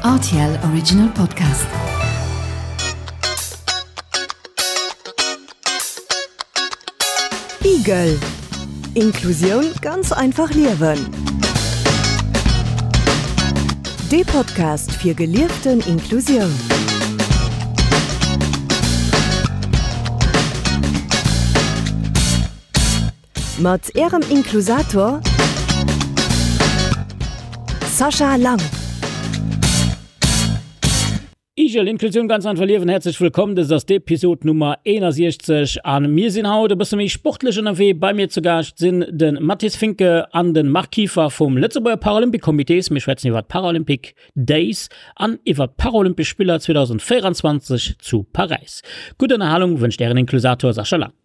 Rtl Original Podcast. Igel Inklusioun ganz einfach liewen. Dee Podcast fir gelieften Inklusioun. Mat Ärem Inklusator Sascha Lang. Igel, Inklusioun ganz einfach liewen, häerzlech wëllkomm. Dëst ass d'Episod Nummer 61 a mir sinn haut e bësse méi sportlech ënnerwee. Bei mir zu Gaascht sinn de Mathis Finke an de Marc Kieffer vum Lëtzebuerger Paralympic Comités. Mir schwätzen iwwer d'Paralympic Days an iwwer d'Paralympesch Spiller 2024 zu Paräis. Gutt Ënnerhalung wënscht Ären Inklusator Sascha Lang.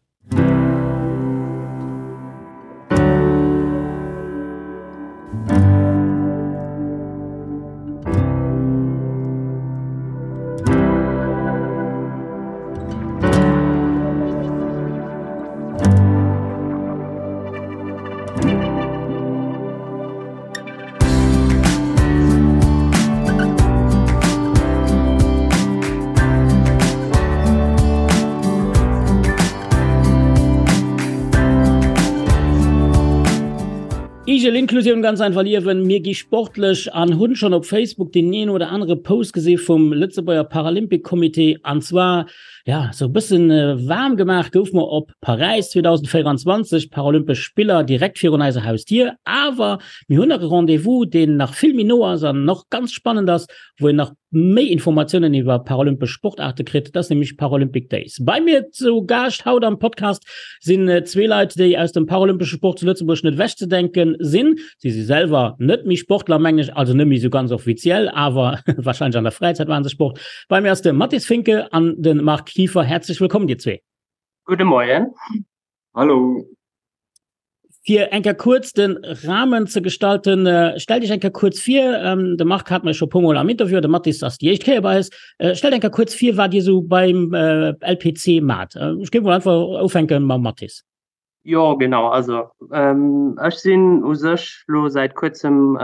Igel Inklusioun ganz einfach liewen. Mir gi sportlech an hunn schonn op Facebook deen een oder anere Post gesi vum Lëtzebuerger Paralympic Comité an zwar ja sou e bëssen waarm gemaach gouf mer op Paräis 2024, Paralympesch Spiller direkt virun eiser Hausdier. Awer mir hunn nach e Rendez-vous, deen nach vill méi no ass an och ganz spannend ass, wou een nach méi Informatiounen iwwer paralympesch Sportaarte kritt. Dat ass nämlech Paralympic Days. Bei mir zu Gaascht haut am Podcast sinn zwee Leit, déi aus dem paralympesche Sport zu Lëtzebuerg net ewechzedenke sinn. Si si selwer net méi Sportler, mengen ech, also net méi esou ganz offiziell, awer warscheinlech an der Fräizäit maache se Sport. Bei mir ass de Mathis Finke an de Marc Kieffer. Häerzlech wëllkomm, dir zwee. Gudde Moien. Hallo. Fir eng Kéier kuerz de Rahmen ze gestalten, stellt Iech eng Kéier kuerz vir. De Marc hat mer scho e puermol am Interview, de Mathis ass déi éischt Kéier bei eis. Stellt eng Kéier kuerz vir, wat Dir esou beim LPC maacht. Ech géif mol einfach ufänke mam Mathis. Jo, genau. Also ech sinn u sech lo säit kuerzem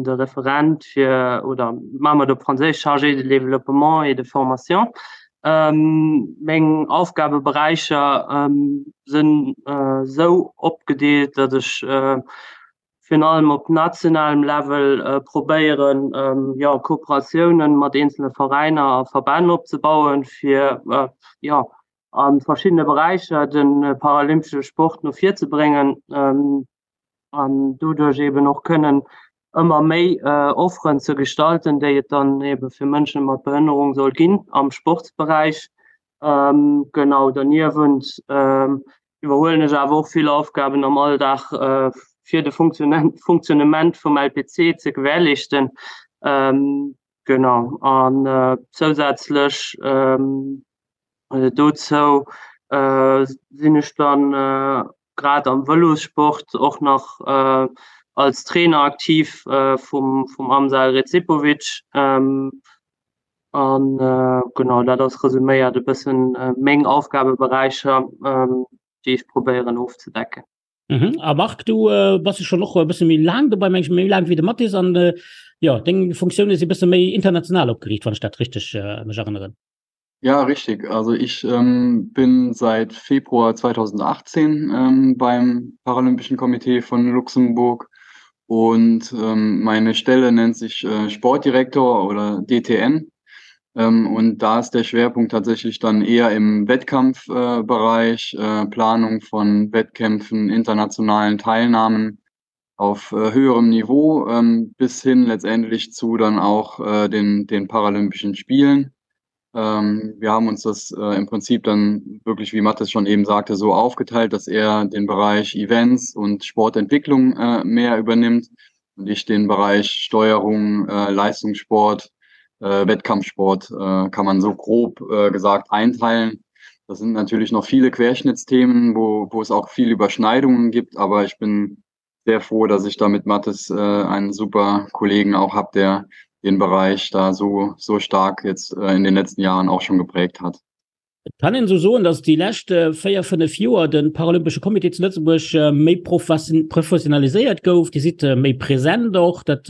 de Referent fir, oder maache mer et op Franséisch, Chargé de développement et de formation. Meng Aufgabeberäicher sinn esou opgedeelt, datt ech virun allem op nationalem Level probéieren, jo, Kooperatiounen mat eenzele Veräiner a Verbänn opzebauen, fir, jo, a verschiddene Beräicher de paralympesche Sport no vir ze bréngen an doduerch eben och kënnen ëmmer méi Offeren ze gestalten, déi et dann ebe fir Mënsche mat Behënnerung soll ginn am Sportsberäich. Genau, derniewent iwwerhuelen ech awer och vill Aufgaben am Alldag, fir de Fonctionnement vum LPC ze gewährleeschten. Genau, an zousätzlech Dozou sinn ech dann grad am Vëlossport och nach als Trainer aktiv vum vum Amsal Recipovic. An genau dat ass resuméiert e bëssen meng Aufgabeberäicher, déi ech probéieren ofzedecken. Mhm. A Marc, du äh, bass jo schon och e bësse méi laang dobei, meng ech, méi laang wéi de Mathis an äh, ja, deng Funktioune si bësse méi international opgeriicht, wann ech dat richteg äh, mech erënneren. Ja, richtig. Also ich ähm, bin seit Februar 2018 ähm, beim Paralympischen Komitee von Luxemburg und ähm, meine Stelle nennt sich äh, Sportdirektor oder DTN. Ähm, und da ist der Schwerpunkt tatsächlich dann eher im Wettkampfbereich, äh, äh, Planung von Wettkämpfen, internationalen Teilnahmen auf äh, höherem Niveau ähm, bis hin letztendlich zu dann auch äh, den, den Paralympischen Spielen. Ähm, wir haben uns das äh, im Prinzip dann wirklich, wie Mathis schon eben sagte, so aufgeteilt, dass er den Bereich Events und Sportentwicklung äh, mehr übernimmt und ich den Bereich Steuerung, äh, Leistungssport, äh, Wettkampfsport äh, kann man so grob äh, gesagt einteilen. Das sind natürlich noch viele Querschnittsthemen, wo, wo es auch viel Überschneidungen gibt, aber ich bin sehr froh, dass ich da mit Mathis äh, einen super Kollegen auch habe, der den Bereich da so, so stark jetzt äh, in den letzten Jahren auch schon geprägt hat. Et kann een esou soen, datt déi lescht 4, 5 Joer de Paralympesche Comité zu Lëtzebuerg méi professionaliséiert gouf. Dir sidd méi present och, dat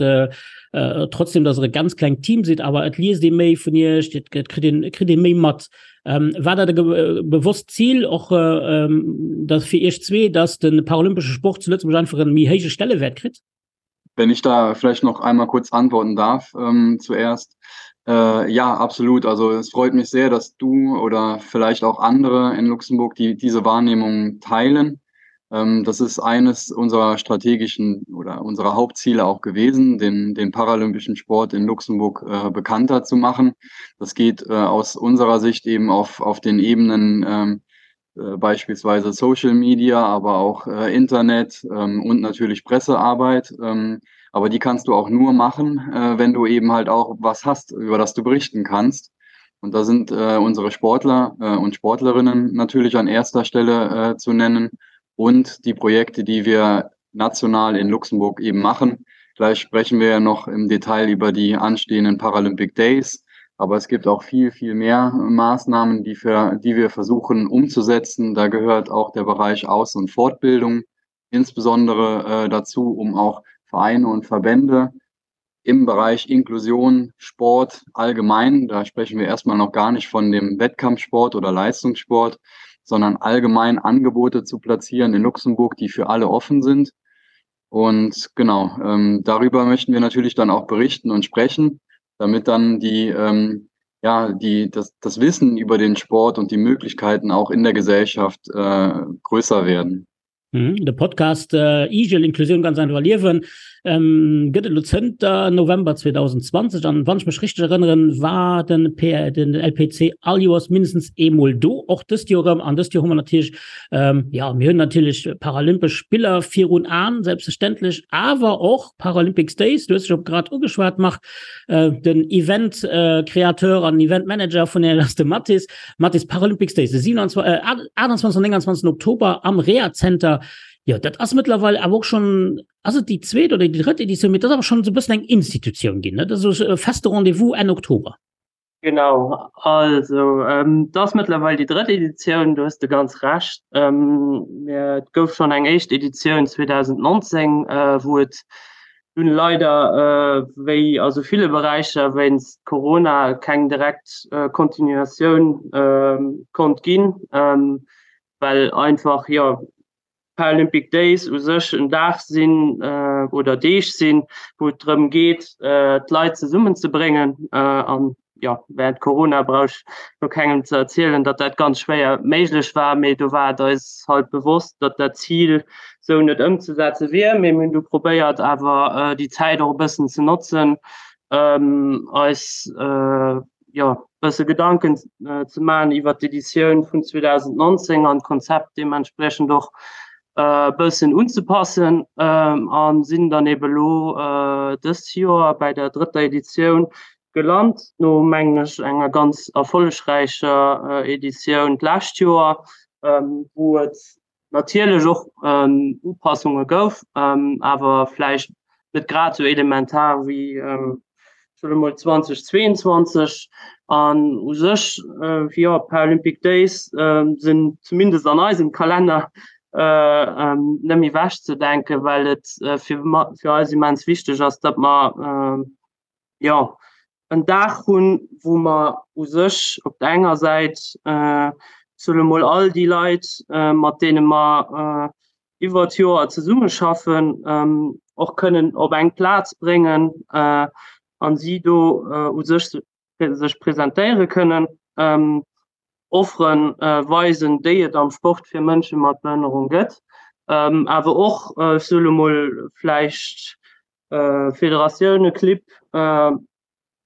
trotzdem datt Der e ganz klengt Team sidd, awer et liest ee méi vun Iech, et kritt een, kritt ee méi mat. War dat e bewosst Zil och datt fir Iech zwee, datt de paralympesche Sport zu Lëtzebuerg einfach e méi héije Stellewäert kritt? Wenn ich da vielleicht noch einmal kurz antworten darf ähm, zuerst. Äh, ja, absolut. Also es freut mich sehr, dass du oder vielleicht auch andere in Luxemburg die diese Wahrnehmung teilen. Ähm, das ist eines unserer strategischen oder unserer Hauptziele auch gewesen, den, den paralympischen Sport in Luxemburg äh, bekannter zu machen. Das geht äh, aus unserer Sicht eben auf, auf den Ebenen ähm, äh, beispielsweise Social Media, aber auch äh, Internet ähm, und natürlich Pressearbeit. Ähm, aber die kannst du auch nur machen, äh, wenn du eben halt auch was hast, über das du berichten kannst. Und da sind äh, unsere Sportler äh, und Sportlerinnen natürlich an erster Stelle äh, zu nennen und die Projekte, die wir national in Luxemburg eben machen. Gleich sprechen wir ja noch im Detail über die anstehenden Paralympic Days. Aber es gibt auch viel, viel mehr Maßnahmen, die, für, die wir versuchen umzusetzen. Da gehört auch der Bereich Aus- und Fortbildung insbesondere äh, dazu, um auch Vereine und Verbände im Bereich Inklusion, Sport allgemein, da sprechen wir erstmal noch gar nicht von dem Wettkampfsport oder Leistungssport, sondern allgemein Angebote zu platzieren in Luxemburg, die für alle offen sind. Und genau, ähm, darüber möchten wir natürlich dann auch berichten und sprechen, damit dann die, ähm, ja, die, das, das Wissen über den Sport und die Möglichkeiten auch in der Gesellschaft äh, größer werden. Mhm, de Podcast äh, Igel Inklusioun ganz einfach liewen ähm, gëtt et lo zënter November 2020 an wann ech mech richteg erënneren, war den, P den LPC all Joers mindestens eemol do, och dëst Joer erëm. An dëst Joer hu mer natierlech ähm, ja mir hunn natierlech Paralympesch Spiller virun Aen, selbstverständlech, awer och Paralympics Days, du hues scho grad ugeschwat Marc, äh, den Event äh, Kreateur an Event Manager vun der ass de Mathis. Mathis Paralympics Days, de 27, äh, 28 an 29. Oktober am Rea Center. Jo, dat ass mëttlerweil awer och schon, ass et déi zweet oder déi drëtt Editioun, mee dat ass awer schon esou e bëssen eng Institutioun ginn, ne? Dat ass esou e feste Rendez-vous Enn Oktober. Genau, also ähm, dat ass mëttlerweil déi drëtt Editioun, do hues de ganz Recht. Ähm, et gouf schon eng éischt Editioun 2019, äh, wou et dunn leider wéi a sou ville Beräicher wéinst Corona keng direkt Continuatioun konnt ginn, well einfach jo Paralympic Days u sech en Dag sinn oder Deeg sinn, wou et drëm geet d'Leit zesummenzebréngen an jo, während Corona brauch ech lo kengem ze erzielen, datt dat ganz schwéier méiglech war, mee do war et eis halt bewosst, datt dat Zil sou net ëmzesetze wier. Mee mir hunn du probéiert awer déi Zäit och e bëssen ze notzen, eis jo bësse Gedanken ze maachen iwwer d'Editioun vun 2019 an d'Konzept deementspriechend och e bëssen unzepassen a sinn dann ebe lo dëst Joer bäi der drëtter Editioun Gelant no, mengen ech, enger ganz erfollegräicher Editioun d'lescht Joer, wou et natierlech och Upassunge gouf, awer vläicht net grad esou elementar wéi, ech soe mol, 2022. An u sech, jo, d'Paralympic Days sinn zumindest an eisem Kalenner net méi ewechzedenken, well et fir eis immens wichteg ass, datt mer, jo, en Dag hunn, wou mer u sech op der enger Säit, soe mol, all déi Leit, mat deene mer iwwer d'Joer zesummeschaffen, och kënnen op eng Plaz bréngen a si do u sech sech presentéiere kënnen, Offere weisen, déi et am Sport fir Mënsche mat Behënnerung gëtt, awer och, ech soe lo mol, vläicht Federatioune, Clibb,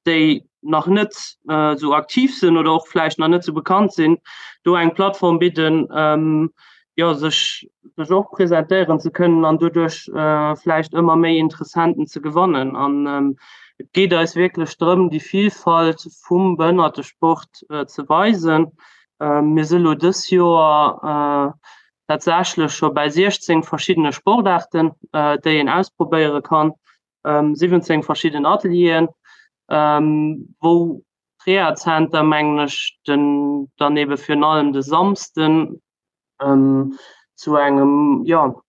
déi nach net esou aktiv sinn oder och vläicht nach net esou bekannt sinn, do eng Plattform bidden, jo, sech sech och presentéieren ze kënnen an doduerch vläicht ëmmer méi Interessenten ze gewannen. An et geet eis wierklech drëm, déi Vilfalt vum Behënnertesport ze weisen. Mir si lo dës Joer tatsächlech scho bäi 16 verschiddene Sportaarten, déi een ausprobéiere kann, 17 verschidden Atelieren, wou. Rehazenter, mengen ech, den dann ebe virun allem de Samsden zu engem, jo,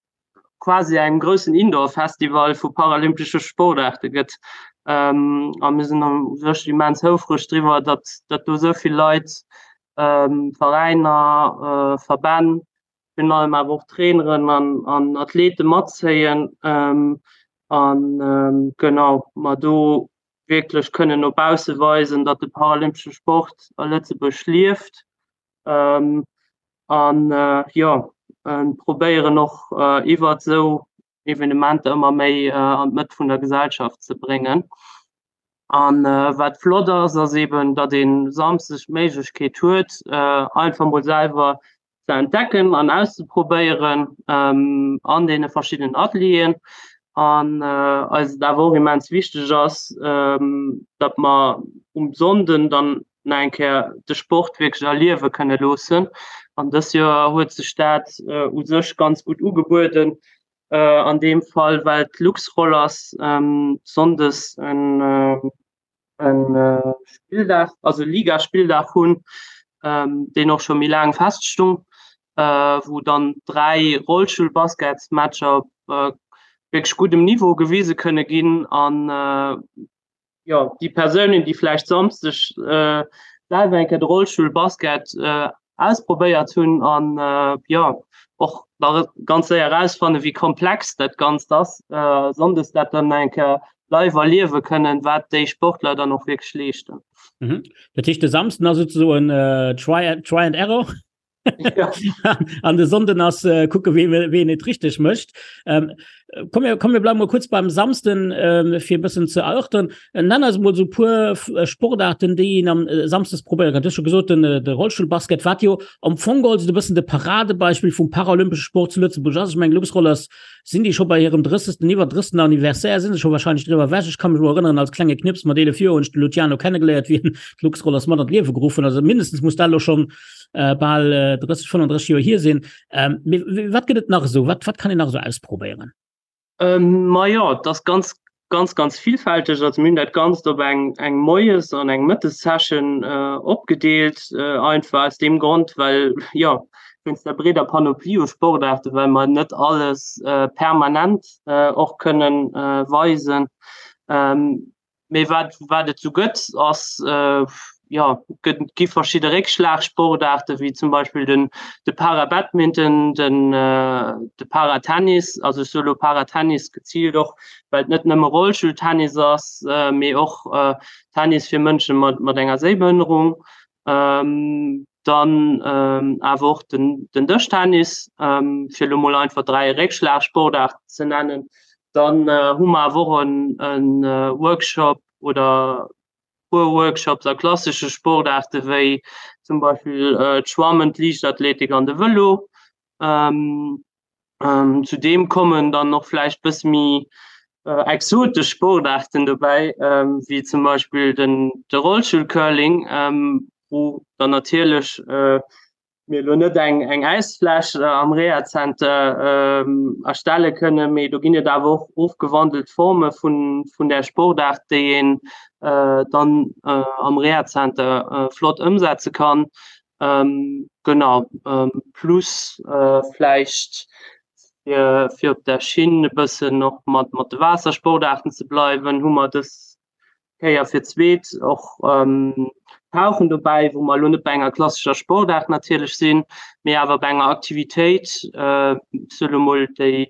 quasi engem groussen Indoor-Festival vu paralympesche Sportaarte gëtt. A mir sinn u sech immens houfreg driwwer, datt datt do esou vill Leit, Veräiner, Verbänn, virun allem awer och Traineren an an Athlete matzéien an genau mer do wierklech kënnen no bausse weisen, datt de paralympesche Sport a Lëtzebuerg lieft. An jo probéieren och iwwert esou Evenementer ëmmer méi an d'Mëtt vun der Gesellschaft ze bréngen. An wat flott ass, ass eben, datt ee Samsdeg d'Méiglechkeet huet, einfach mol selwer ze entdecken an auszeprobéieren an deene verschiddenen Atelieren. An eis et awer och immens wichteg ass, datt mer um Sonnden dann nach eng Kéier de Sport wierklech erliewe kënne loossen. An dës Joer huet sech dat u sech ganz gutt ugebueden an deem Fall, well d'Luxrollers sonndes en en Spilldag, also Ligaspilldag hunn, deen och scho méi laang feststung, wou dann 3 Rollstullbasketsmatcher op wierklech guddem Niveau gewise kënne ginn an jo, déi Persounen, déi vläicht Samsdeg selwer eng Kéier de Rollstullbasket ausprobéiert hunn an jo och nach ganz séier erausfannen, wéi komplex dat Ganzt ass, sonndes dat dann eng Kéier live erliewe kënnen, wat déi Sportler dann och wierklech leeschten. Mhm. Dat heescht, de Samsden ass souzesoen try, try and error? Ja. An de Sonnden ass äh, kucke wee, ween et richteg mécht. Ähm, komm, mir, komm, mir bleiwen mol kuerz beim Samsden ähm, fir e bëssen ze erörtern. Äh, nenn eis mol sou puer äh, Sportarten, déi een am äh, Samsdes probéiere kann. Du hues scho gesot, den, äh, de Rollstullbasket, wat jo am Fong geholl sou e bëssen de Paradebeispill vum paralympesche Sport zu Lëtzebuerg ass. Ech mengen, Luxrollers sinn déi scho bei hirem 30. iwwer 30. Anniversaire, sinn se scho wahrscheinlech driwwer ewech. Ech ka mech elo erënneren, als klenge Knips mat 11 Joer hunn ech de Luciano kennegeléiert, wéi en d'Luxrollers mat an d'Liewe geruff huet. Also mindestens muss dat elo schonn äh, bal äh, 30, 35 Joer hier sinn. Ähm, wat gëtt et nach esou? Wat, wat kann een nach esou ausprobéieren? Ähm, ma ja, das ganz ganz ganz vielfältig. Also mir hunn dat Ganzt op eng eng Moies an eng Mëttessession äh, opgedeelt, äh, einfach aus dem Grond, well ja wéinst der breeder Panoplie u Sportaarte, well mer net alles äh, permanent äh, och kënnen äh, weisen. Ähm, Mee wat, wat et sou gëtt, ass, jo, gëtt, gi verschidde Réckschlagsportaarte wéi zum Beispill den, de Para-Badminton, den, de Para-Tennis. Also ech soe lo Para-Tennis geziilt och, well et net nëmme Rollstulltennis ass, mee och Tennis fir Mënsche mat, mat enger Séibehënnerung. Dann awer och den, den Dëschtennis, fir elo mol einfach 3 Réckschlagsportaarten ze nennen. Dann hu mer awer och en Workshop oder puer Workshops a klassesche Sportaarte wéi zum Beispill d'Schwammen, d'Liichtathletik an de Vëlo. Zudeem kommen dann och vläicht bësse méi exotesch Sportaarten dobäi, wéi zum Beispill den de Rollstullcurling, wou dann natierlech mir elo net eng eng Äisfläch am Rehazenter erstelle kënnen, mee do ginn et awer och ofgewandelt Forme vun vun där Sportaart, déi een dann am Rehazenter flott ëmsetze kann. Genau, plus vläicht fir fir op der Schinn e bëssen och mat mat de Waassersportaarten ze bleiwen, hu mer dës Kéier fir d'zweet och Tauchen dobäi, wou mer elo net bei enger klassescher Sportaart natierlech sinn, mee awer bei enger Aktivitéit, ech soe lo mol, déi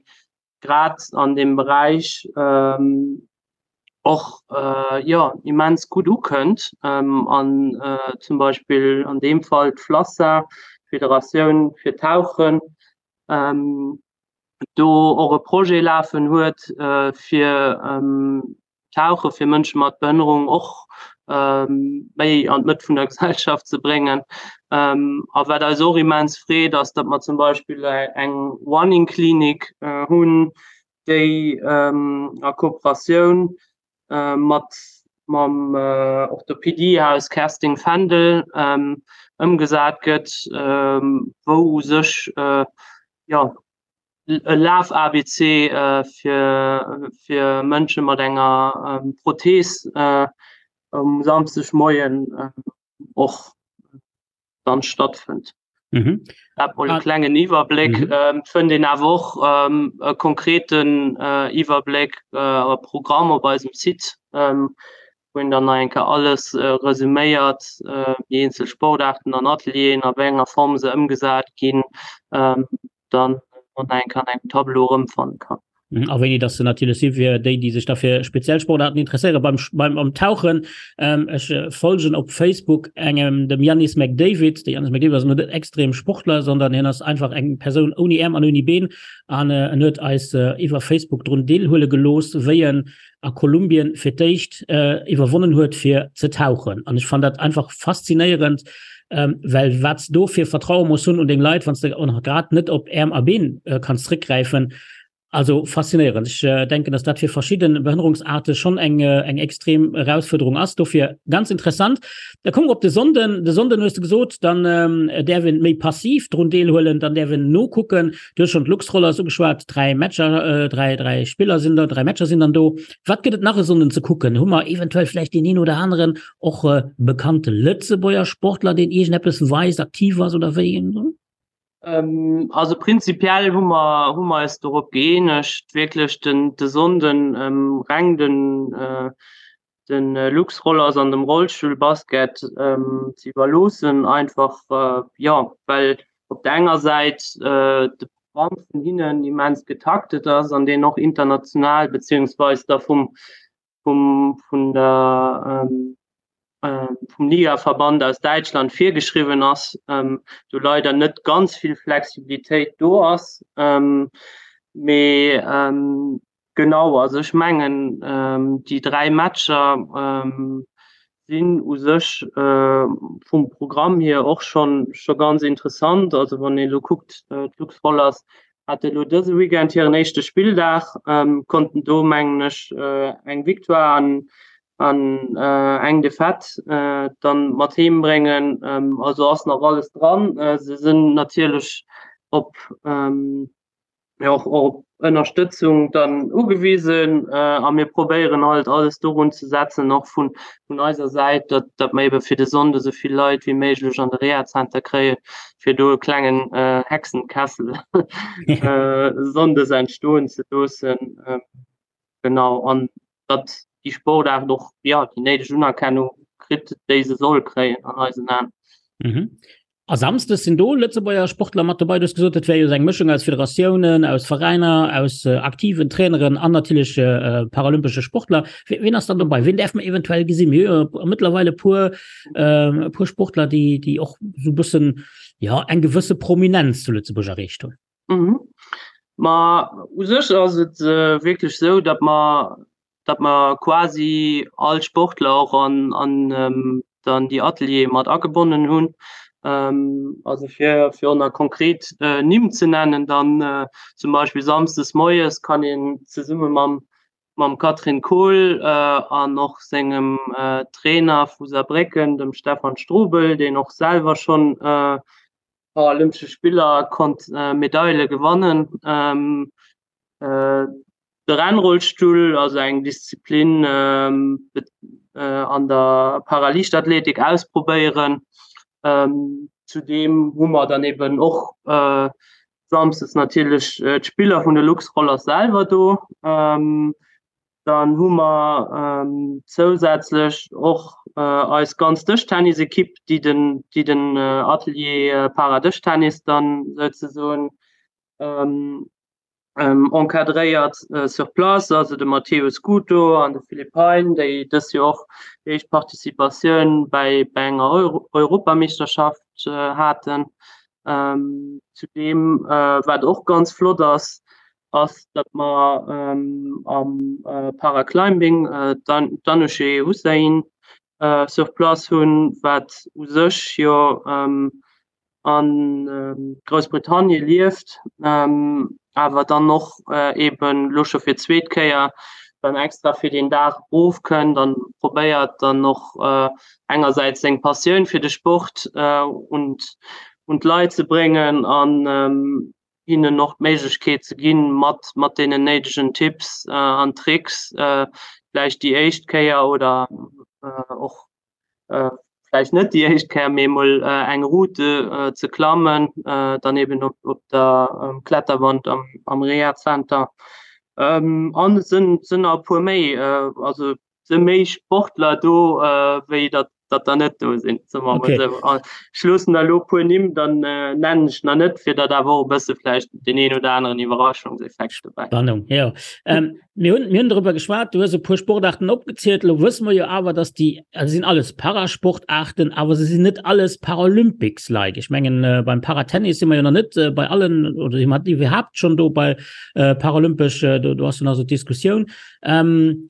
grad an deem Beräich och jo immens gutt ukënnt an zum Beispill an deem Fall d'FLASSA, d'Federatioun fir Tauchen, do och e Projet lafen huet, fir Tauche fir Mënsche mat Behënnerung och méi an d'Mëtt vun der Gesellschaft ze bréngen. A wat eis och immens freet, ass, datt mer zum Beispill eng Running Clinic hunn, déi a Kooperatioun mat mam Orthopediehaus Kerstin Fendel ëmgesat gëtt, wou u sech jo e Laf-ABC fir fir Mënsche mat enger Prothees. Um Samschdegmoien och dann stattfënnt. Mhm. Dat mol e klengen Iwwerbléck. Mhm. Ähm, fënnt een awer och ähm, e konkreten äh, Iwwerbléck äh, a Programm op eisem Site, ähm, wou een dann nach eng Kéier alles äh, resuméiert, äh, déi eenzel Sportaarten an Atelieren, a wéi enger Form se ëmgesat ginn, ähm, dann och nach eng Kéier an engem Tableau erëmfanne kann. Mhm, a wéini dass se natierlech si fir déi, déi sech da fir speziell Sportaarten interesséieren. Beim, beim am Tauchen, ähm, ech äh, folgen op Facebook engem, dem Yannis McDavid. De Yannis McDavid ass net extrem Sportler, sondern hien ass einfach eng Persoun ouni Äerm an ouni Been. An äh, en huet eis äh, iwwer Facebook drun deelhuele gelooss, wéi en a Kolumbien fir d'éischt äh, iwwerwonnen huet fir ze tauchen. An ech fand dat einfach faszinéierend, ähm, well wat s do fir Vertraue muss hunn un deng Leit, wann s de och nach grad net op Äerm a Been äh, kanns zréckgräifen. Also faszinéierend. Ech äh, denken, dass dat fir verschidden Behënnerungsarte schon eng, äh, eng extrem Erausfuerderung ass. Dofir ganz interessant. Da kommen wir op de Sonnden. De Sonnden hues du gesot, dann ähm, däerf een méi passiv drun deelhuelen, dann däerf een nokucken. Du hues schon d'Luxrollers ugeschwat, 3 Matcher, 3, 3 Spiller sinn da, 3 Matcher sinn dann do. Wat gëtt et nach e Sonnden ze kucken? Hu mer eventuell vläicht deen een oder aneren och bekannte Lëtzebuerger Sportler, deen iergendeppes weist, aktiv ass oder wéi? Also prinzipiell hu mer, hu mer eis dorop gëeenegt, wierklech den, de Sonnden reng den, de Luxrollers an dem Rollstullbasket ze iwwerloossen, einfach jo well op der enger Säit de Programm vun hinnen immens getaktet ass an deen och international beziehungsweis da vum vum vun der vum Ligaverband aus Däitschland virgeschriwwen ass, do leider net ganz vill Flexibilitéit do ass, mee Genau, also ech mengen déi 3 Matcher sinn u sech vum Programm hier och schonn scho ganz interessant. Also wann een elo kuckt, d'Lux Rollers hate elo dëse Weekend hiren éischte Spilldag, konnten do mengen ech eng Victoire an an eng Defaite dann mat heem bréngen. Also ass nach alles dran. Se sinn natierlech op jo och op Ënnerstëtzung dann ugewisen a mir probéieren halt alles dorun ze setzen, och vun vun eiser Säit, datt datt mer ebe fir de Sonnde esou vill Leit wéi méiglech an de Rehazenter kréien, fir do e klengen Hexenkessel sonndes entstoen ze loossen. Genau, an datt déi Sportaart och, jo, déi néideg Unerkennung kritt, déi se soll kréien an eisen Aen. Mhm. A Samsdes sinn do Lëtzebuerger Sportler mat dobei. Du hues gesot, et wär jo eng Mëschung aus Federatiounen, aus Veräiner, aus aktiven Traineren an natierlech paralympesche Sportler. Wien ass dann dobei? Wien däerf mer eventuell gesinn? Mir hu jo mëttlerweil e puer, e puer Sportler, déi, déi och esou e bëssen, jo, eng gewësse Prominenz zu Lëtzebuerg erreecht hunn. Mhm. Ma u sech ass et wierklech esou, datt mer datt mer quasi all Sportler och an, an dann déi Ateliere mat agebonnen hunn. Also fir, fir och nach konkret Nimm ze nennen, dann zum Beispill samsdes moies kann een zesumme mam, mam Catherine Kohl an och sengem Trainer vu Saarbrécken, dem Stefan Strobel, deen och selwer schonn Paralympesche Spiller konnt Medaile gewannen, De Rennrollstull, also eng Disziplin an der Paraliichtathletik ausprobéieren. Zudeem hu mer dann eben och samsdes natierlech d'Spiller vun de Luxrollers selwer do. Dann hu mer zousätzlech och eis ganz Dëschtennisekipp, déi den, déi den Atelier Paradëschtennis dann souzesoen encadréiert sur place, also de Matteo Scuto an de Philippe Hein, déi dës Joer och déi éischt Participatioun bäi bei enger Europameeschterschaft haten. Zudeem, wat och ganz flott ass, ass, datt mer am Paraclimbing d'Anoushé Hussein sur place hunn, wat u sech jo a Groussbritannien lieft, awer dann och eben elo scho fir d'zweet Kéier dann extra fir deen Dag ofkënnt an probéiert dann och engersäits seng Passioun fir de Sport un un d'Leit ze bréngen an hinnen och d'Méiglechkeet ze ginn, mat mat deenen néidegen Tipps an Tricks vläicht déi éischt Kéier oder. och vläicht net déi éischt Kéier, mee emol eng Route ze klammen, dann eben op op der Kletterwand am am Rehazenter. An et sënn sënn nach e puer méi, also se méi Sportler do wéi datt datt der net do sinn, soe mer emol esou. An ech loossen der elo e puer Nimm, dann nennen ech nach net, fir datt awer och e bësse vläicht deen een oder aneren Iwwerraschungseffekt dobäi. Spannung, jo. Mir hunn, mir hunn darüber geschwat, du hues e puer Sportarten opgezielt. Elo wësse mer jo awer, dass déi, also sinn alles Parasportarten, awer se sinn net alles Paralympics-like. Ech mengen, äh, beim Paratennis si mer jo nach net äh, bei allen, oder si mer iwwerhaapt schon do bei äh, Paralympesch, äh, do, do ass jo nach so d'Diskussioun. Ähm,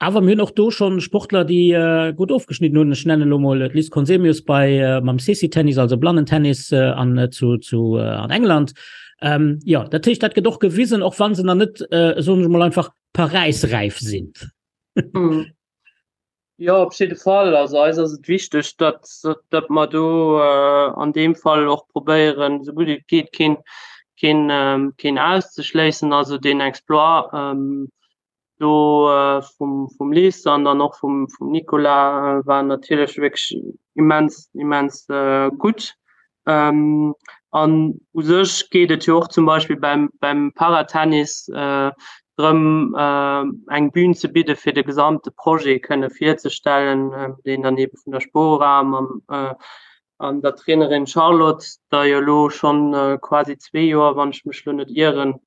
awer mir hunn och do schon Sportler, déi äh, gutt ofgeschnidden hunn. Ech nennen elo mol d'Liz Conzemius bei äh, mam Sissy-Tennis, also Blannentennis äh, an, äh, zu, zu, äh, an England. Ähm, ja, dat heescht, dat gëtt och gewisen, och wann se nach net, äh, soen ech mol einfach, paräisräif sinn. Mm. Ja, op jidde Fall. Also eis ass et wichteg, datt, datt mer do äh, an deem Fall och probéieren, esou gutt et geet, keen, keen, ähm, keen auszeschléissen. Also deen Exploit ähm, do vum vum Liz an dann och vum vum Nicolas war natierlech wierklech immens immens gutt. An u sech geet et jo och zum Beispill beim beim Paratennis drëm eng Bühn ze bidde fir de gesamte Projet kënne virzestellen, deen dann eebe vun der Spora mam an der Trainerin Charlotte, der jo elo schonn quasi zwee Joer, wann ech mech elo net ieren,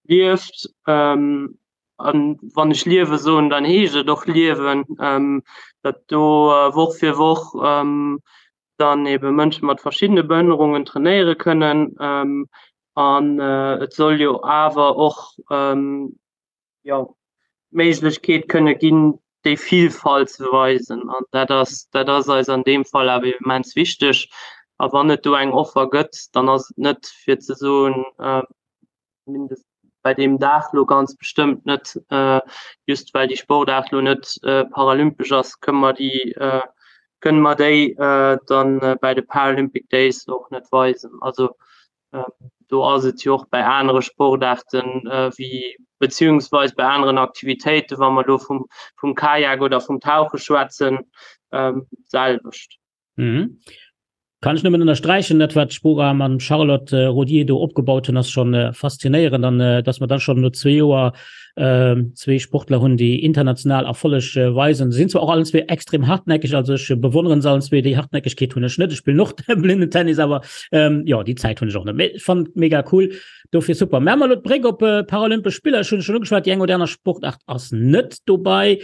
lieft. An wann ech liewe soen, dann heescht et och liewen, datt do Woch fir Woch dann ebe Mënsche mat verschiddene Behënnerungen trainéiere kënnen. An et soll jo awer och jo, d'Méiglechkeet kënne ginn, déi Vilfalt ze weisen. An dat ass, dat ass eis an deem Fall awer immens wichteg. A wann et do eng Offer gëtt, dann ass et net fir ze soen, mindest bei deem Dag lo ganz bestëmmt net, just well déi Sportaart lo net paralympesch ass, kënne mer déi, kënne mer déi dann bei de Paralympic Days och net weisen. Also Do ass et jo och bei anere Sportaarten wéi beziehungsweis bei aneren Aktivitéiten, wa mer do vum, vum Kajak oder vum Tauche schwätzen, d'selwecht. Mhm. Kann ech nëmmen ënnersträichen, dat wat d'Spora mam Charlotte Rodier do opgebaut hunn, ass schonn faszinéierend an datt mer dann schonn no zwee Joer zwee Sportler hunn, déi international Erfolleg weisen. Se sinn zwar och allen zwee extrem hartnäckeg, also ech bewonneren se allen zwee, déi Hartnäckegkeet hunn ech net. Ech spillen och Blindenttennis, awer jo, déi Zäit hunn ech och net. Mee ech fannen et mega cool, dofir super. Maache mer elo d'Bréck op Paralympesch Spiller. Ech hunn et schonn ugeschwat, déi eng oder aner Sportaart ass net dobei.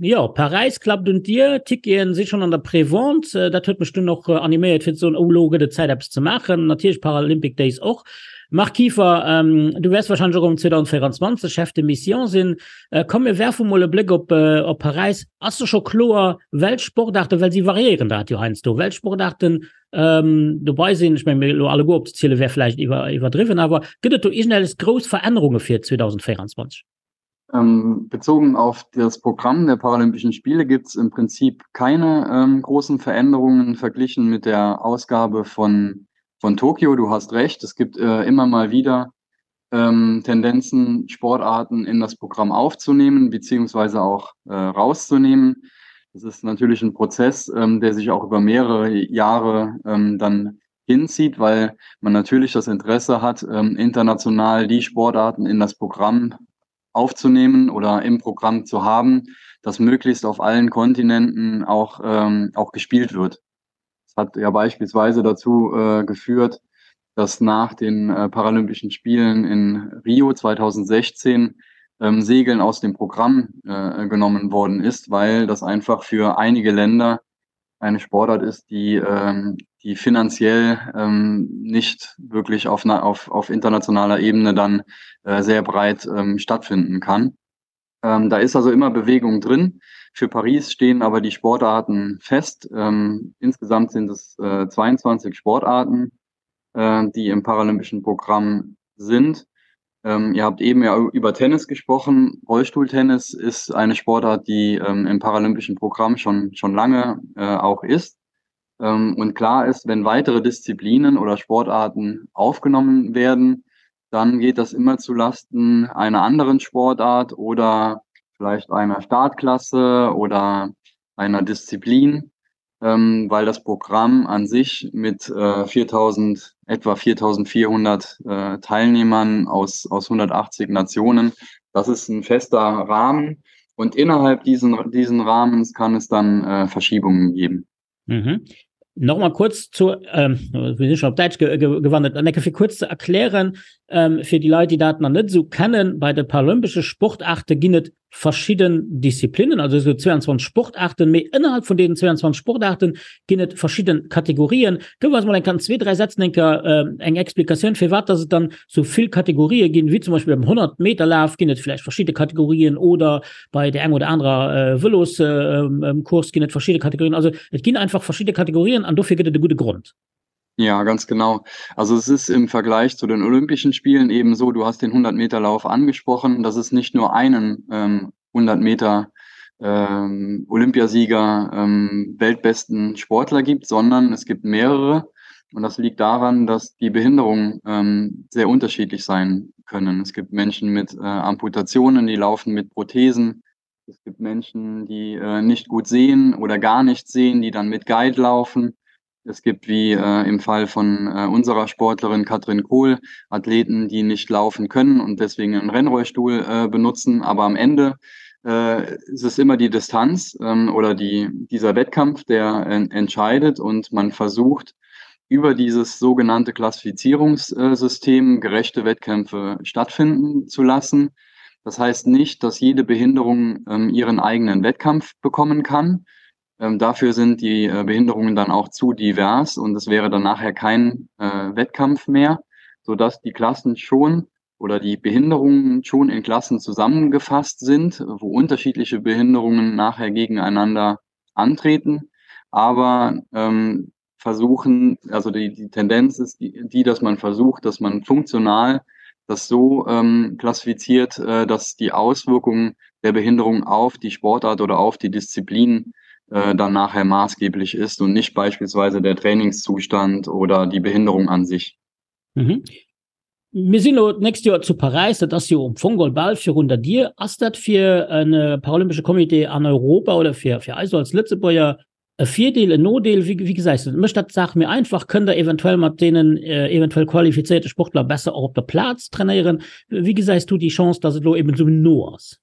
Jo, Paräis klappt un d'Dier, d'Ticketen si schonn an der Prévente. Dat huet mech dunn och animéiert fir ze soen, oh elo gëtt et Zäit eppes ze maachen. Natierlech Paralympic Days och. Marc Kieffer, du wäers wahrscheinlech och am 2024 Chef de Mission sinn. Komm mir werfe mol e Bléck op op Paräis. Ass da scho kloer, welch Sportaarten, well si variéieren dat jo heiansdo, welch Sportaarten dobei sinn? Ech menge mir elo alleguer opzeziele wär vläicht iwwer iwwerdriwwen, awer gëtt et do iergendelles grouss Verännerunge fir 2024? Ähm, bezogen auf das Programm der Paralympischen Spiele gibt es im Prinzip keine ähm, großen Veränderungen verglichen mit der Ausgabe von, von Tokio. Du hast recht, es gibt äh, immer mal wieder ähm, Tendenzen, Sportarten in das Programm aufzunehmen, beziehungsweise auch äh, rauszunehmen. Das ist natürlich ein Prozess, ähm, der sich auch über mehrere Jahre ähm, dann hinzieht, weil man natürlich das Interesse hat, ähm, international die Sportarten in das Programm aufzunehmen oder im Programm zu haben, das möglichst auf allen Kontinenten auch, ähm, auch gespielt wird. Das hat ja beispielsweise dazu äh, geführt, dass nach den äh, Paralympischen Spielen in Rio 2016 ähm, Segeln aus dem Programm äh, genommen worden ist, weil das einfach für einige Länder eine Sportart ist, die, ähm, die finanziell ähm, nicht wirklich auf, auf, auf internationaler Ebene dann äh, sehr breit ähm, stattfinden kann. Ähm, da ist also immer Bewegung drin. Für Paris stehen aber die Sportarten fest. Ähm, insgesamt sind es äh, 22 Sportarten, äh, die im paralympischen Programm sind. Ähm, ihr habt eben ja über Tennis gesprochen. Rollstuhltennis ist eine Sportart, die ähm, im paralympischen Programm schon, schon lange äh, auch ist. Ähm, und klar ist, wenn weitere Disziplinen oder Sportarten aufgenommen werden, dann geht das immer zu Lasten einer anderen Sportart oder vielleicht einer Startklasse oder. einer Disziplin, ähm, weil das Programm an sich mit äh, 4000, etwa 4400 äh, Teilnehmern aus, aus 180 Nationen, das ist ein fester Rahmen. Und innerhalb diesen, diesen Rahmens kann es dann äh, Verschiebungen geben. Mhm. Nochmal kurz zu ähm, wir sind schon op Däitsch ge ge gewandert an fir kurz zu erklären ähm, fir die Leit, die dat nach net so kennen, bei de paralympesche Sportarte ginn et verschidden Disziplinnen, also esou 22 Sportarten, mee ënnerhalb vun deenen 22 Sportarten ginn et verschidden Kategorien. Gëff eis mol eng Kéier an zwee, dräi Sätzen eng Kéier eng Explikatioun, firwat dass et dann sou vill Kategorië ginn, wéi zum Beispill beim 100 Meter Laf ginn et vläicht verschidde Kategorien oder bei där eng oder anerer Vëloscourse ginn et verschidde Kategorien. Also et ginn einfach verschidde Kategorien an dofir gëtt et e gudde Grond. Ja, ganz genau. Also es ist im Vergleich zu den Olympischen Spielen eben so, du hast den 100-Meter-Lauf angesprochen, dass es nicht nur einen ähm, 100 Meter ähm, Olympiasieger, ähm, weltbesten Sportler gibt, sondern es gibt mehrere. Und das liegt daran, dass die Behinderungen ähm, sehr unterschiedlich sein können. Es gibt Menschen mit äh, Amputationen, die laufen mit Prothesen. Es gibt Menschen, die äh, nicht gut sehen oder gar nicht sehen, die dann mit Guide laufen. Es gibt wie äh, im Fall von äh, unserer Sportlerin Katrin Kohl Athleten, die nicht laufen können und deswegen einen Rennrollstuhl äh, benutzen. Aber am Ende äh, ist es immer die Distanz ähm, oder die, dieser Wettkampf, der äh, entscheidet und man versucht, über dieses sogenannte Klassifizierungssystem gerechte Wettkämpfe stattfinden zu lassen. Das heißt nicht, dass jede Behinderung ähm, ihren eigenen Wettkampf bekommen kann. Ähm, dafür sind die äh, Behinderungen dann auch zu divers und es wäre dann nachher kein äh, Wettkampf mehr, sodass die Klassen schon oder die Behinderungen schon in Klassen zusammengefasst sind, wo unterschiedliche Behinderungen nachher gegeneinander antreten. Aber ähm, versuchen, also die, die Tendenz ist die, die, dass man versucht, dass man funktional das so ähm, klassifiziert, äh, dass die Auswirkungen der Behinderung auf die Sportart oder auf die Disziplin äh, dann nachher maßgeblich ist und nicht beispielsweise der Trainingszustand oder die Behinderung an sich. Mhm. Mir sinn elo d'nächst Joer zu Paräis, dat ass jo am Fong geholl bal virun der Dier. Ass dat fir e paralympesche Comité an Europa oder fir fir eis als Lëtzebuerger e Virdeel, en Nodeel? Wéi wéi gesäis du dat? Mécht dat d'Saach méi einfach? Kënnt Der eventuell mat deenen eventuell qualifizéierte Sportler besser och op der Plaz trainéieren? Wéi gesäis du déi Chance, datt et elo eben esou no ass?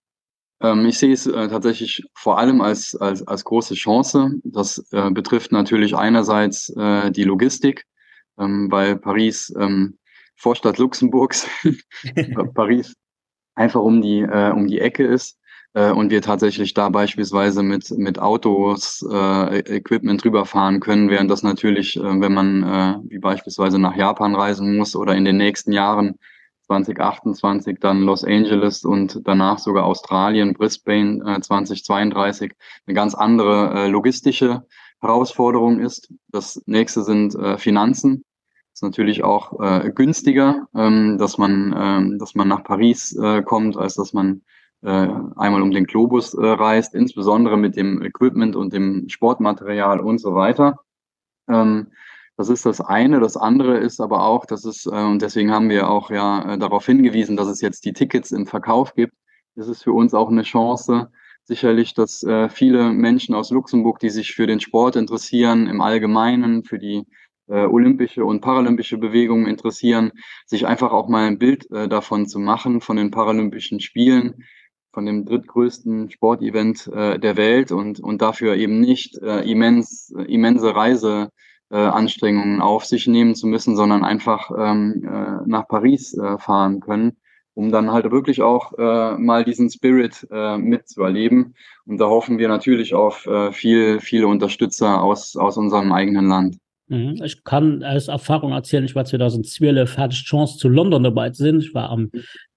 Ähm, ich sehe es äh, tatsächlich vor allem als, als, als große Chance. Das äh, betrifft natürlich einerseits äh, die Logistik, ähm, weil Paris ähm, Vorstadt Luxemburgs, Paris einfach um die, äh, um die Ecke ist äh, und wir tatsächlich da beispielsweise mit, mit Autos, äh, Equipment rüberfahren können, während das natürlich, äh, wenn man äh, wie beispielsweise nach Japan reisen muss oder in den nächsten Jahren 2028 dann Los Angeles und danach sogar Australien, Brisbane äh, 2032 eine ganz andere äh, logistische Herausforderung ist. Das nächste sind äh, Finanzen. Ist natürlich auch äh, günstiger, ähm, dass man, ähm, dass man nach Paris äh, kommt, als dass man äh, einmal um den Globus äh, reist, insbesondere mit dem Equipment und dem Sportmaterial und so weiter. Ähm, das ist das eine. Das andere ist aber auch, dass es, äh, und deswegen haben wir auch ja äh, darauf hingewiesen, dass es jetzt die Tickets im Verkauf gibt. Das ist für uns auch eine Chance, sicherlich, dass äh, viele Menschen aus Luxemburg, die sich für den Sport interessieren, im Allgemeinen, für die äh, olympische und paralympische Bewegung interessieren, sich einfach auch mal ein Bild äh, davon zu machen, von den Paralympischen Spielen, von dem drittgrößten Sportevent äh, der Welt und, und dafür eben nicht äh, immens, immense Reiseanstrengungen äh, auf sich nehmen zu müssen, sondern einfach ähm, äh, nach Paris äh, fahren können, um dann halt wirklich auch äh, mal diesen Spirit äh, mitzuerleben. Und da hoffen wir natürlich auf äh, viel, viele Unterstützer aus, aus unserem eigenen Land. Mhm. Ech kann aus Erfahrung erzielen, ich war 2012 hat ich d'Chance zu London dobäi ze sinn. Ich war am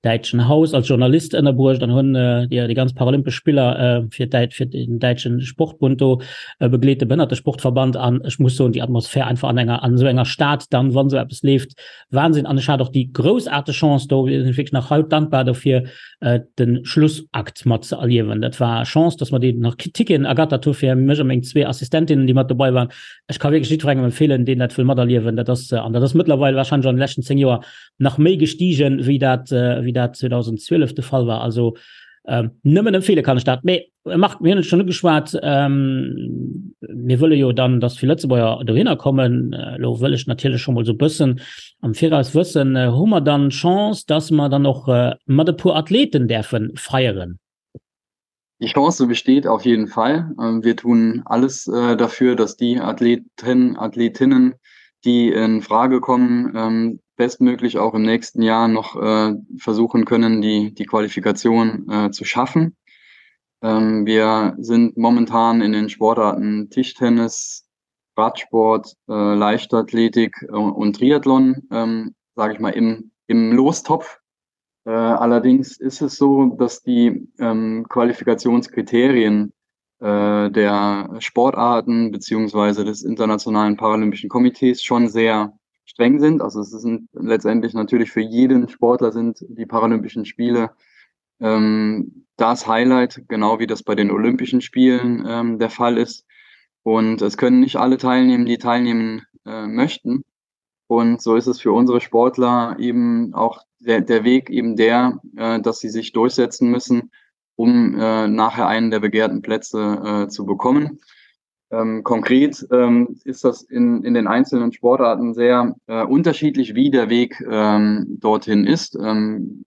däitschen Haus als Journalist ënnerbruecht an hunn äh, déi, déi ganz paralympesch Spiller äh, fir d'Däit fir den däitschen Sportbund do äh, begleet, de Behënnertesportverband an ech muss soen, déi Atmosphär einfach an enger an esou enger Stad dann, wann esou eppes leeft, Wahnsinn. An ech hat och déi groussaarteg Chance, do sinn ech wierklech nach haut dankbar dofir, äh, den Schlussakt mat ze erliewen. Dat war Chance, dass mer déi nach Ticketen ergattert hu fir mech a meng zwee Assistentinnen, déi mat dobei waren. Ech ka wierklech jiddwerengem empfeelen, deen dat wëll materliewen. Dat ass, an dat ass mëttlerweil warscheinlech an de leschten 10 Joer nach méi gestigen, wéi dat, wéi dat 2012 de Fall war. Also. Ähm, nëmmen empfehle kann ech dat. Mee äh, Marc, mir hunn et schon ugeschwat, ähm, mir wëlle jo dann, dass vill Lëtzebuerger dohinner kommen. Äh, lo wëll ech natierlech schon mol so bëssen am Viraus wëssen, äh, hu mer dann Chance, dass mer dann och äh, mat e puer Athleten däerfe feieren? Die Chance besteht auf jeden Fall. Ähm, wir tun alles äh, dafür, dass die Athleten, Athletinnen, die in Frage kommen, ähm, bestmöglich auch im nächsten Jahr noch äh, versuchen können, die, die Qualifikation äh, zu schaffen. Ähm, wir sind momentan in den Sportarten Tischtennis, Radsport, äh, Leichtathletik äh, und Triathlon, ähm, sage ich mal, im, im Lostopf. Äh, allerdings ist es so, dass die ähm, Qualifikationskriterien äh, der Sportarten beziehungsweise des Internationalen Paralympischen Komitees schon sehr streng sind. Also es sind letztendlich natürlich für jeden Sportler sind die Paralympischen Spiele ähm, das Highlight, genau wie das bei den Olympischen Spielen ähm, der Fall ist. Und es können nicht alle teilnehmen, die teilnehmen äh, möchten. Und so ist es für unsere Sportler eben auch der, der Weg eben der, äh, dass sie sich durchsetzen müssen, um äh, nachher einen der begehrten Plätze äh, zu bekommen. Ähm, konkret ähm, ist das in, in den einzelnen Sportarten sehr äh, unterschiedlich, wie der Weg ähm, dorthin ist. Ähm,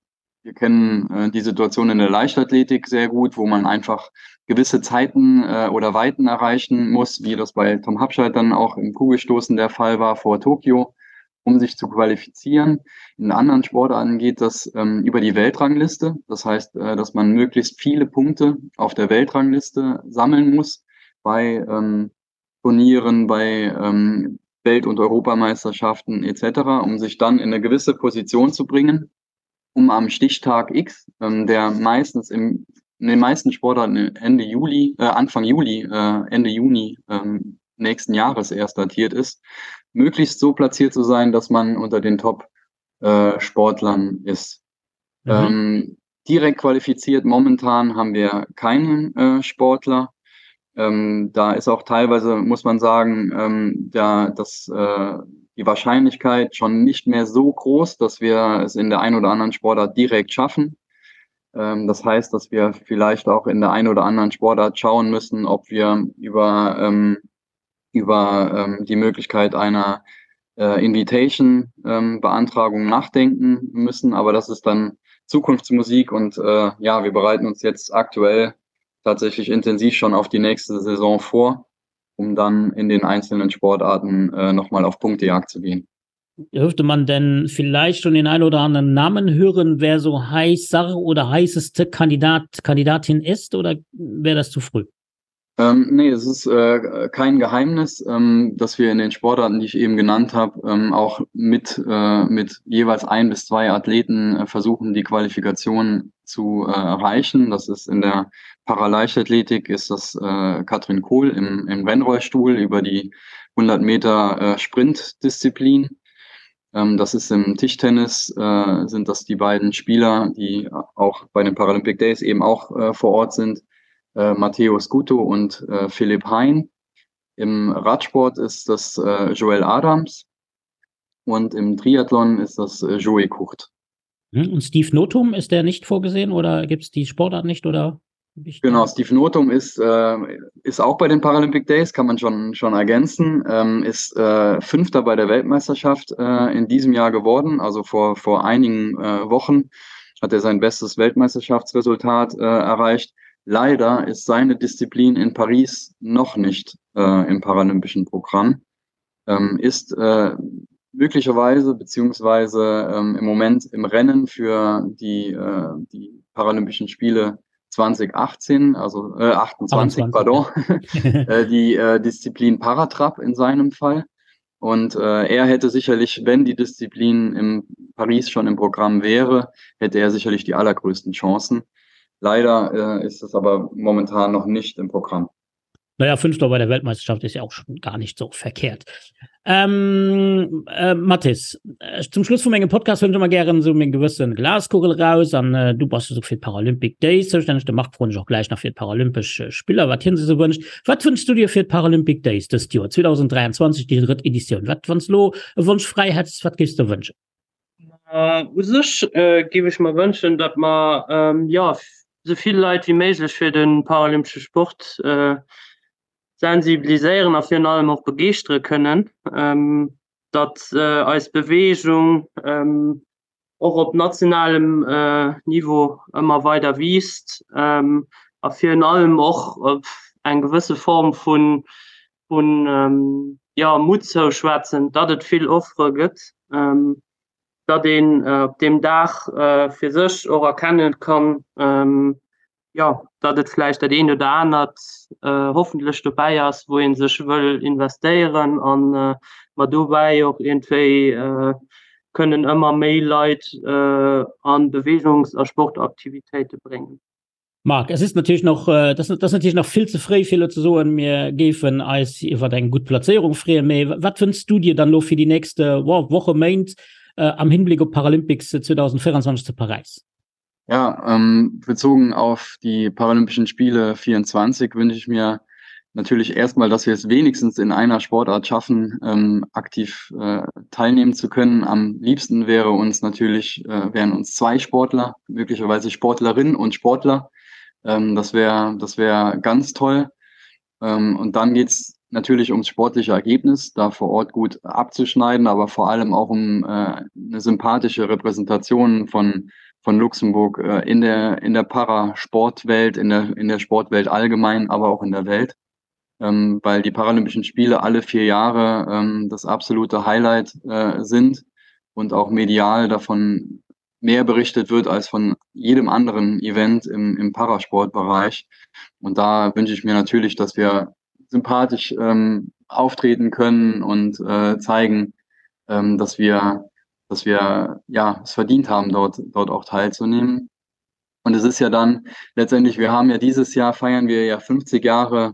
wir kennen äh, die Situation in der Leichtathletik sehr gut, wo man einfach gewisse Zeiten äh, oder Weiten erreichen muss, wie das bei Tom Habscheid dann auch im Kugelstoßen der Fall war vor Tokio, um sich zu qualifizieren. In anderen Sportarten geht das ähm, über die Weltrangliste. Das heißt, äh, dass man möglichst viele Punkte auf der Weltrangliste sammeln muss bei ähm, Turnieren, bei ähm, Welt- und Europameisterschaften etc., um sich dann in eine gewisse Position zu bringen um am Stichtag X, ähm, der meistens im, in den meisten Sportarten Ende Juli, äh, Anfang Juli, äh, Ende Juni ähm, nächsten Jahres erst datiert ist, möglichst so platziert zu sein, dass man unter den Top-Sportlern äh, ist. Mhm. Ähm, direkt qualifiziert momentan haben wir keinen äh, Sportler. Ähm, da ist auch teilweise, muss man sagen, ähm, da, dass äh, die Wahrscheinlichkeit schon nicht mehr so groß, dass wir es in der ein oder anderen Sportart direkt schaffen. Ähm, das heißt, dass wir vielleicht auch in der ein oder anderen Sportart schauen müssen, ob wir über, ähm, über ähm, die Möglichkeit einer äh, Invitation-Beantragung ähm, nachdenken müssen. Aber das ist dann Zukunftsmusik und äh, ja, wir bereiten uns jetzt aktuell tatsächlich intensiv schon auf die nächste Saison vor, um dann in den einzelnen Sportarten äh, nochmal auf Punktejagd zu gehen. Dürfte man denn vielleicht schon den einen oder anderen Namen hören, wer so heißer oder heißeste Kandidat, Kandidatin ist oder wäre das zu früh? Ähm, nee, es ist äh, kein Geheimnis, ähm, dass wir in den Sportarten, die ich eben genannt habe, ähm, auch mit, äh, mit jeweils ein bis zwei Athleten äh, versuchen, die Qualifikation zu äh, erreichen. Das ist in der Paraleichtathletik ist das äh, Katrin Kohl im, im Rennrollstuhl über die 100 Meter äh, Sprintdisziplin. Ähm, das ist im Tischtennis, äh, sind das die beiden Spieler, die auch bei den Paralympic Days eben auch äh, vor Ort sind äh, Matteo Scuto und äh, Philipp Hein. Im Radsport ist das äh, Joel Adams und im Triathlon ist das äh, Joey Kucht. Hm, und Steve Notum ist der nicht vorgesehen oder gibt es die Sportart nicht oder? Genau, Steve Notum ist, äh, ist auch bei den Paralympic Days, kann man schon, schon ergänzen, ähm, ist äh, Fünfter bei der Weltmeisterschaft äh, in diesem Jahr geworden, also vor, vor einigen äh, Wochen hat er sein bestes Weltmeisterschaftsresultat äh, erreicht. Leider ist seine Disziplin in Paris noch nicht äh, im paralympischen Programm, ähm, ist äh, möglicherweise beziehungsweise ähm, im Moment im Rennen für die, äh, die Paralympischen Spiele 2018, also äh, 28, 28, pardon, äh, die äh, Disziplin Paratrap in seinem Fall. Und äh, er hätte sicherlich, wenn die Disziplin in Paris schon im Programm wäre, hätte er sicherlich die allergrößten Chancen. Leider äh, ist es aber momentan noch nicht im Programm. Naja, Fünfter bei der Weltmeisterschaft ist ja auch schon gar nicht so verkehrt. Ähm, äh, Mathis, äh, zum Schluss vun mengem Podcast hunn ech ëmmer gären esou meng gewëssen Glaskugel raus an äh, du bass esou fir d'Paralympic Days zoustänneg. De Marc froen ech och gläich nach fir d'Paralympesch äh, Spiller, wat hien sech esou wënscht. Wat wënschs du dir fir d'Paralympic Days dëst Joer, 2023, déi drëtt Editioun? Wat, wann s lo e Wonsch fräi hätts, wat géifs de wënschen? U sech géif ech mer wënschen, datt mer jo. esou vill Leit wéi méiglech fir de paralympesche Sport sensibiliséieren a virun allem och begeeschtere kënnen, datt eis Beweegung och op nationalem Niveau ëmmer weider wiisst a virun allem och eng gewësse Form vun vun jo Mutt zouschwätzen, datt et vill Offere gëtt, datt een op deem Dag fir sech och erkennen kann, jo, datt et vläicht dat eent oder anert hoffentlech dobäi ass, wou ee sech wëll investéieren an mer dobäi och iergendwéi kënnen ëmmer méi Leit a Beweegungs a Sportaktivitéite bréngen. Marc, es ist natürlich noch, äh, das, das natürlich nach vill ze fréi fir ze soen, mir géifen eis iwwer eng gutt Plazéierung freeën. Mee wat wënschs du dir dann lo fir déi nächst äh, Woche, Méint äh, am Hinblick op Paralympics 2024 zu Paräis? Ja, ähm, bezogen auf die Paralympischen Spiele 24 wünsche ich mir natürlich erstmal, dass wir es wenigstens in einer Sportart schaffen, ähm, aktiv äh, teilnehmen zu können. Am liebsten wäre uns natürlich, äh, wären uns zwei Sportler, möglicherweise Sportlerinnen und Sportler. Ähm, das wäre das wäre ganz toll. Ähm, und dann geht's natürlich ums sportliche Ergebnis, da vor Ort gut abzuschneiden, aber vor allem auch um äh, eine sympathische Repräsentation von, von Luxemburg äh, in der, in der Parasportwelt, in der, in der Sportwelt allgemein, aber auch in der Welt. Ähm, weil die Paralympischen Spiele alle vier Jahre ähm, das absolute Highlight äh, sind und auch medial davon mehr berichtet wird als von jedem anderen Event im, im Parasportbereich. Und da wünsche ich mir natürlich, dass wir sympathisch ähm, auftreten können und äh, zeigen, ähm, dass wir, dass wir ja, es verdient haben, dort, dort auch teilzunehmen. Und es ist ja dann letztendlich, wir haben ja dieses Jahr feiern wir ja 50 Jahre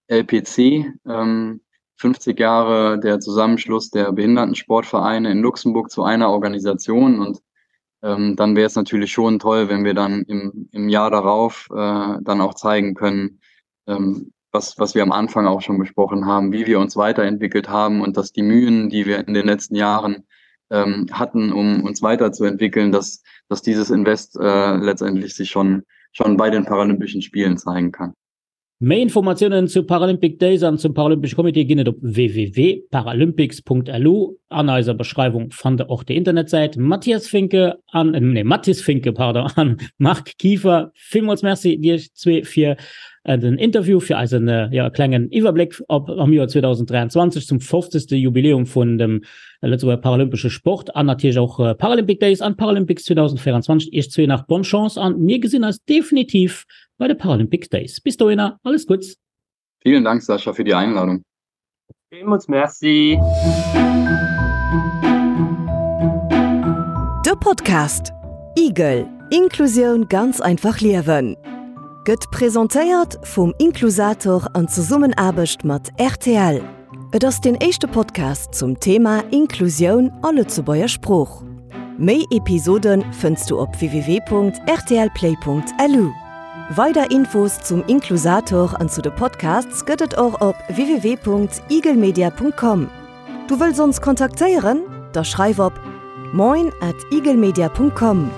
LPC, ähm, 50 Jahre der Zusammenschluss der Behindertensportvereine in Luxemburg zu einer Organisation. Und ähm, dann wäre es natürlich schon toll, wenn wir dann im, im Jahr darauf äh, dann auch zeigen können, ähm, was, was wir am Anfang auch schon besprochen haben, wie wir uns weiterentwickelt haben und dass die Mühen, die wir in den letzten Jahren ähm, hatten, um uns weiterzuentwickeln, dass, dass dieses Invest äh, letztendlich sich schon, schon bei den Paralympischen Spielen zeigen kann. Méi Informatiounen zu Paralympic Days an zum Paralympesche Comité ginn et op www.paralympics.lu. An eiser Beschreiwung fannt der och déi Internetsäit. Mathias Finke an, nee, Mathis Finke, pardon, an Marc Kieffer, villmools Merci Iech zwee fir den Interview, fir eisen, jo, klengen Iwwerbléck op am Joer 2023 zum 50. Jubiläum vun dem Lëtzebuerger Paralympesche Sport an natierlech och Paralympic Days an Paralympics 2024. Iech zwee nach bonne Chance an mir gesinn eis definitiv bei de Paralympic Days. Bis dohinner alles Gutts. Vielen Dank Sascha fir déi Einladung. Villmools Merci. De Podcast Igel, Inklusioun ganz einfach liewen gëtt presentéiert vum Inklusator an Zesummenaarbecht mat rtl. Et ass deen éischte Podcast zum Thema Inklusioun a Lëtzebuerger Sprooch. Méi Episode fënns du op www.rtlplay.lu. Weider Infos zum Inklusator an zu de Podcasts gëtt et och op www.igelmedia.com. Du wëlls ons kontaktéieren? Da schreif op moin at igelmedia.com.